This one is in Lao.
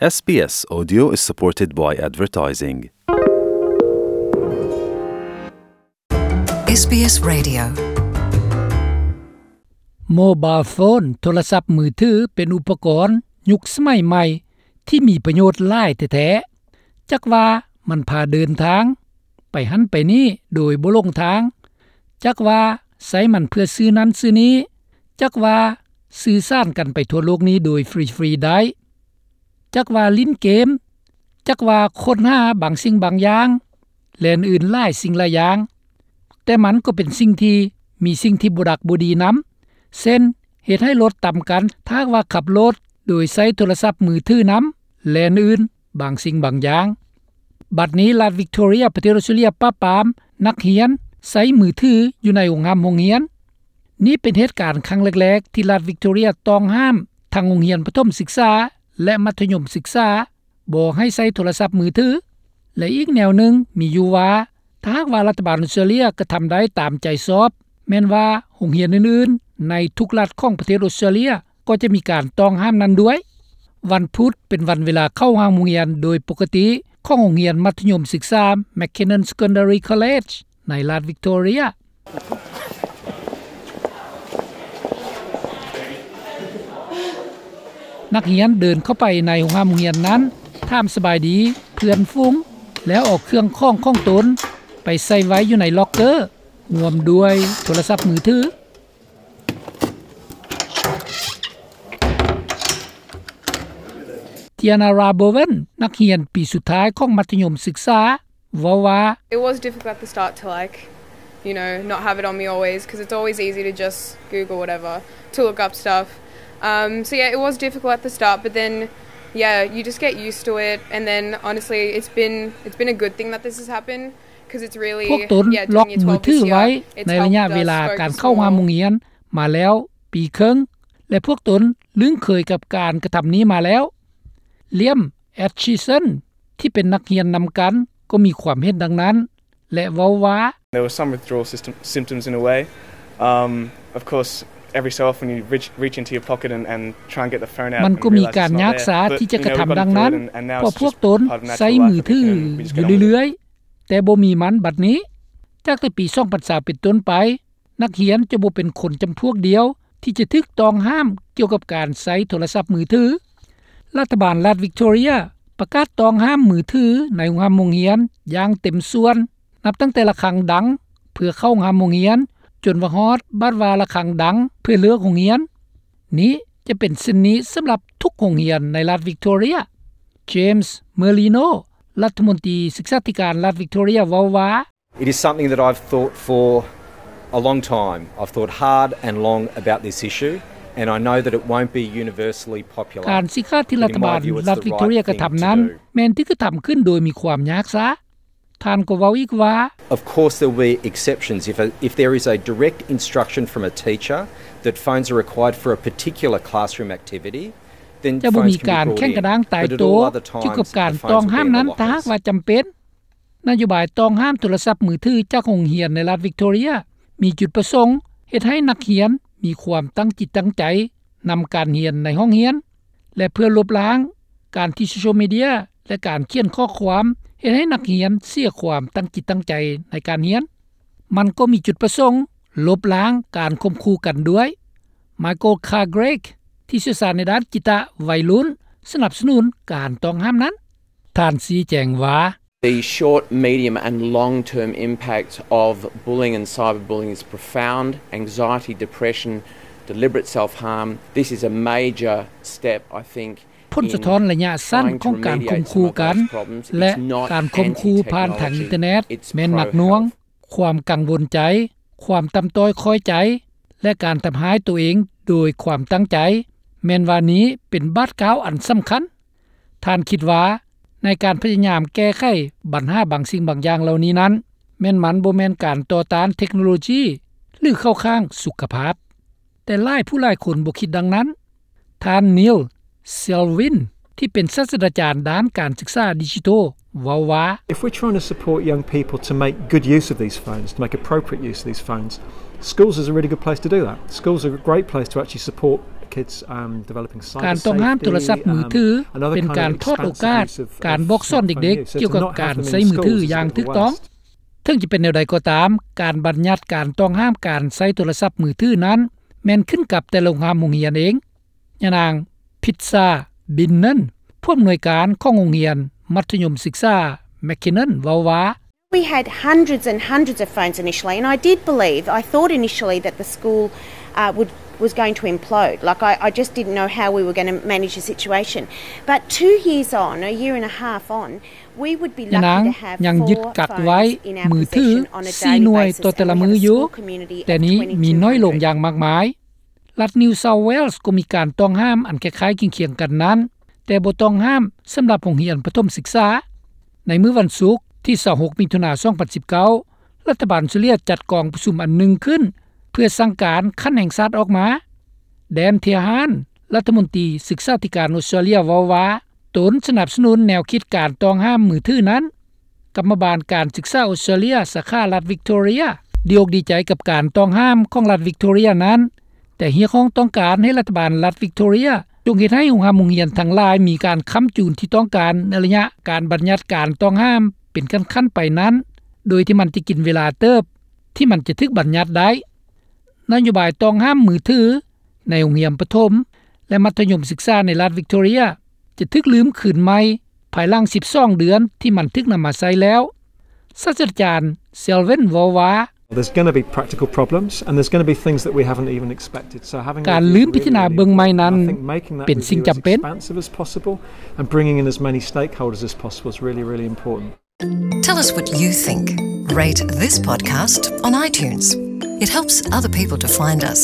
SBS Audio is supported by advertising. SBS Radio. Mobile phone ໂທລະສັບມືຖື ເປັນອຸປະກອນຍຸກສະໄໝໃໝ່ທີ່ມີປະໂຫຍດຫຼາຍແທ້ໆ. ຈັກວ່າມັນພາເດີນທາງໄປຫັ້ນໄປນີ້ໂດຍບໍ່ຫຼົງທາງ, ຈັກວ່າໃຊ້ມັນເພື່ອຊື້ນັ້ນຊື້ນີ້, ຈັກວ່າສື່ສານກັນໄປທົ່ວໂລກນີ້ໂດຍຟຣີໆໄດ້, ຈັກວ່າຫຼິ້ນເກມ, ຈັກວ່າຄົ້ນຫາບາງສິ່ງບາງຢ່າງ ແລະ ອື່ນໆຫຼາຍສິ່ງຫຼາຍຢ່າງ. ແຕ່ມັນກໍເປັນສິ່ງທີ່ມີສິ່ງທີ່ບໍ່ດັກບໍ່ດີນຳ, ເຊັ່ນ ເຮັດໃຫ້ລົດຕຳກັນ ຖ້າຫາກວ່າຂັບລົດໂດຍໃຊ້ໂທລະສັບມືຖືນຳ ແລະ ອື່ນໆບາງສິ່ງບາງຢ່າງ. ບັດນີ້ລັດວິກໂທເຣຍ ປະເທດອອສເຕຣເລຍ ປາບປາມນັກຮຽນໃຊ້ມືຖືຢູ່ໃນໂຮງຮ່ຳໂຮງຮຽນ. ນີ້ເປັນເຫດການຄັ້ງແລກໆທີ່ລັດວິກໂທເຣຍຕ້ອງຫ້າມທັງໂຮງຮຽນປະຖົມສຶກສາ ແລະ ມັດທະຍົມສຶກສາ ບໍ່ໃຫ້ໃຊ້ໂທລະສັບມືຖື. ແລະ ອີກແນວໜຶ່ງມີຢູ່ວ່າ ຖ້າຫາກວ່າລັດຖະບານອອສເຕຣເລຍກະທຳໄດ້ຕາມໃຈຊອບ, ແມ່ນວ່າໂຮງຮຽນອື່ນໆໃນທຸກລັດຂອງປະເທດອອສເຕຣເລຍກໍຈະມີການຕ້ອງຫ້າມນັ້ນດ້ວຍ. ວັນພຸດເປັນວັນເວລາເຂົ້າຫ້ອງຮຽນໂດຍປົກກະຕິຂອງໂຮງຮຽນມັດທະຍົມສຶກສາ McKinnon Secondary College ໃນລັດວິກໂທເຣຍ. ນັກຮຽນເດີນເຂົ້າໄປໃນໂຮງຮ່ຳໂຮງຮຽນນັ້ນ, ຖາມສະບາຍດີເພື່ອນຝູງ ແລ້ວເອົາເຄື່ອງຂອງຂອງຕົນໄປໃສ່ໄວ້ຢູ່ໃນລັອກເກີ ຮ່ວມດ້ວຍໂທລະສັບມືຖື. Tiana Rabowen ນັກຮຽນປີສຸດທ້າຍຂອງມັດທະຍົມສຶກສາ ເວົ້າວ່າ It was difficult at the start to, like, you know, not have it on me always, 'cause it's always easy to just Google whatever to look up stuff. Um, so yeah, it was difficult at the start, but then, yeah, you just get used to it, and then honestly, it's been, it's been a good thing that this has happened, 'cause it's really, ພວກຕົນ yeah, ລັອກມືຖືໄວ້ໃນໄລຍະເວລາການເຂົ້າຮ່ຳໂຮງຮຽນມາແລ້ວປີເຄິ່ງ ແລະ ພວກຕົນລຶ້ງເຄີຍກັບການກະທຳນີ້ມາແລ້ວ. Liam Atchison ທີ່ເປັນນັກຮຽນນຳກັນ ກໍມີຄວາມເຫັນດັ່ງນັ້ນ ແລະ ເວົ້າວ່າ There were some withdrawal system, symptoms in a way. Um, of course, every so often you reach, reach into your pocket and, and try and get the phone out. ມັນກໍມີການຍາກຊາທີ່ຈະກະທຳດັ່ງນັ້ນ ເພາະພວກຕົນໃຊ້ມືຖືຢູ່ເລື້ອຍໆ, ແຕ່ບໍ່ມີມັນບັດນີ້. ຈາກແຕ່ປີສອງພັນຊາວເປັນຕົ້ນໄປ, ນັກຮຽນຈະບໍ່ເປັນຄົນຈຳພວກດຽວທີ່ຈະຖືກຕ້ອງຫ້າມກ່ຽວກັບການໃຊ້ໂທລະສັບມືຖື. ລັດຖະບານລັດວິກໂທເຣຍປະກາດຕ້ອງຫ້າມມືຖືໃນໂຮງຮ່ຳໂຮງຮຽນຢ່າງເຕັມສ່ວນ ນັບຕັ້ງແຕ່ລະຄັງດັງເພື່ອເຂົ້າໂຮງຮ່ຳໂຮງຮຽນ ຈົນວ່າຮອດບາດວ່າລະຄັງດັງເພື່ອເລີກໂຮງຮຽນ. ນີ້ຈະເປັນເຊັ່ນນີ້ສຳລັບທຸກໂຮງຮຽນໃນລັດວິກໂທເຣຍ. James Merlino ລັດຖະມົນຕີສຶກສາທິການລັດວິກໂທເຣຍເວົ້າວ່າ It is something that I've thought for a long time. I've thought hard and long about this issue, and I know that it won't be universally popular. ການສີຂາດທີ່ລັດຖະບານລັດວິກໂທເຣຍກະທຳນັ້ນ ແມ່ນຖືກກະທຳຂຶ້ນໂດຍມີຄວາມຍາກຊາ. ທ່ານກໍເວົ້າອີກວ່າ Of course there will be exceptions. If a, if there is a direct instruction from a teacher that phones are required for a particular classroom activity, then ຈະບໍ່ມີການແຂ່ງກະດ້າງຕາຍໂຕກ່ຽວກັບການຕ້ອງຫ້າມນັ້ນ ຖ້າຫາກວ່າຈຳເປັນ. ນະໂຍບາຍຕ້ອງຫ້າມໂທລະສັບມືຖືຈາກໂຮງຮຽນໃນລັດວິກໂທເຣຍ ມີຈຸດປະສົງເຮັດໃຫ້ນັກຮຽນມີຄວາມຕັ້ງຈິດຕັ້ງໃຈນຳການຮຽນໃນຫ້ອງຮຽນ ແລະ ເພື່ອລົບລ້າງການທີ່ໂຊຊຽວມີເດຍ ແລະ ການຂຽນຂໍ້ຄວາມເຮັດໃຫ້ນັກຮຽນເສຍຄວາມຕັ້ງຈິດຕັ້ງໃຈໃນການຮຽນ. ມັນກໍມີຈຸດປະສົງລົບລ້າງການຂົ່ມຂູ່ກັນດ້ວຍ. Michael Cargrake ທີ່ຊ່ຽວຊານໃນດ້ານຈິດຕະໄວລຸ້ນ ສະໜັບສະໜູນການຕ້ອງຫ້າມນັ້ນ. ທ່ານຊີ້ແຈງວ່າ The short, medium and long-term impact of bullying and cyberbullying is profound. Anxiety, depression, deliberate self-harm. This is a major step, I think, ຜົນສະທ້ອນໄລຍະສັ້ນຂອງການຂົ່ມຂູ່ກັນ ແລະ ການຂົ່ມຂູ່ຜ່ານທາງອິນເຕີເນັດແມ່ນໜັກໜ່ວງ, ຄວາມກັງວົນໃຈ, ຄວາມຕ່ຳຕ້ອຍຂ້ອຍໃຈ ແລະ ການທຳຮ້າຍໂຕເອງໂດຍຄວາມຕັ້ງໃຈ, ແມ່ນວ່ານີ້ເປັນບາດກ້າວອັນສຳຄັນ. ທ່ານຄິດວ່າໃນການພະຍາຍາມແກ້ໄຂບັນຫາບາງສິ່ງບາງຢ່າງເຫຼົ່ານີ້ນັ້ນ ແມ່ນມັນບໍ່ແມ່ນການຕໍ່ຕ້ານເທັກໂນໂລຈີ ຫຼື ເຂົ້າຂ້າງສຸຂະພາບ. ແຕ່ຫຼາຍຜູ້ຫຼາຍຄົນບໍ່ຄິດດັ່ງນັ້ນ. ທ່ານ Neil Selwyn ທີ່ເປັນສາດສະດາຈານດ້ານການສຶກສາດິຈິໂຕ ເວົ້າວ່າ If we're trying to support young people to make good use of these phones, to make appropriate use of these phones, schools is a really good place to do that. Schools are a great place to actually support ການຕ້ອງຫ້າມໂທລະສັບມືຖື ເປັນການຖອດໂອກາດການບອກສອນເດັກໆ ກ່ຽວກັບການໃຊ້ມືຖືຢ່າງຖືກຕ້ອງ. ເຖິງຈະເປັນແນວໃດກໍຕາມ, ການບັນຍັດການຕ້ອງຫ້າມການໃຊ້ໂທລະສັບມືຖືນັ້ນ ແມ່ນຂຶ້ນກັບແຕ່ໂຮງຮ່ຳໂຮງຮຽນເອງ. ຍານາງ ພິດຊາ ບິນເນີນ ຜູ້ອຳນວຍການຂອງໂຮງຮຽນມັດທະຍົມສຶກສາ McKinnon ເວົ້າວ່າ: We had hundreds and hundreds of phones initially, and I did believe, I thought initially that the school, uh, would, was going to implode. Like, I, I just didn't know how we were gonna manage the situation. But two years on, a year and a half on, we would be lucky to have four phones in our possession on a daily basis, and that was still communication. ຍານາງຍັງຍຶດກັກໄວ້ມືຖືສີ່ໜ່ວຍຕໍ່ແຕ່ລະມື້ຢູ່, ແຕ່ນີ້ມີນ້ອຍລົງຢ່າງມາກມາຍ. ລັດ New South Wales ກໍມີການຕ້ອງຫ້າມອັນຄ້າຍໆຄຽງໆກັນນັ້ນ, ແຕ່ບໍ່ຕ້ອງຫ້າມສຳລັບໂຮງຮຽນປະຖົມສຶກສາ. ໃນມື້ວັນສຸກທີຊາວຫົກ ມິຖຸນາ ສອງພັນສິບເກົ້າ ລັດຖະບານອົດສະຕຣາເລຍຈັດກອງປະຊຸມອັນໜຶ່ງຂຶ້ນ ເພື່ອສັ່ງການຂັ້ນແຫ່ງຊາດອອກມາ. Dan Tehan ລັດຖະມົນຕີສຶກສາທິການອົດສະຕຣາເລຍເວົ້າວ່າ ຕົນສະໜັບສະໜູນແນວຄິດການຕ້ອງຫ້າມມືຖືນັ້ນ. ກຳມະບານການສຶກສາອົດສະຕຣາເລຍ ສາຂາລັດວິກໂຕເຣຍ ດີອົກດີໃຈກັບການຕ້ອງຫ້າມຂອງລັດວິກໂຕເຣຍນັ້ນ, ແຕ່ຮຽກຮ້ອງຕ້ອງການໃຫ້ລັດຖະບານລັດວິກໂຕເຣຍຈົ່ງເຮັດໃຫ້ໂຮງຮ່ຳໂຮງຮຽນທັງຫຼາຍມີການຄ້ຳຈູນທີ່ຕ້ອງການໃນໄລຍະການບັນຍັດການຕ້ອງຫ້າມເປັນຂັ້ນໆໄປນັ້ນ, ໂດຍທີ່ມັນຈະກິນເວລາເຕີບທີ່ມັນຈະຖືກບັນຍັດໄດ້. ນະໂຍບາຍຕ້ອງຫ້າມມືຖືໃນໂຮງຮຽນປະຖົມ ແລະ ມັດທະຍົມສຶກສາໃນລັດວິກໂຕເຣຍ ຈະຖືກລືມຄືນໃໝ່ພາຍຫຼັງສິບສອງເດືອນທີ່ມັນຖືກນຳມາໃຊ້ແລ້ວ. ສາດສະດາຈານ Selwyn ເວົ້າວ່າ There's gonna be practical problems, and there's gonna be things that we haven't even expected. So having a review is really important, and I think making that review as expansive as possible and bringing in as many stakeholders as possible is really, really important. Tell us what you think. Rate this podcast on iTunes. It helps other people to find us.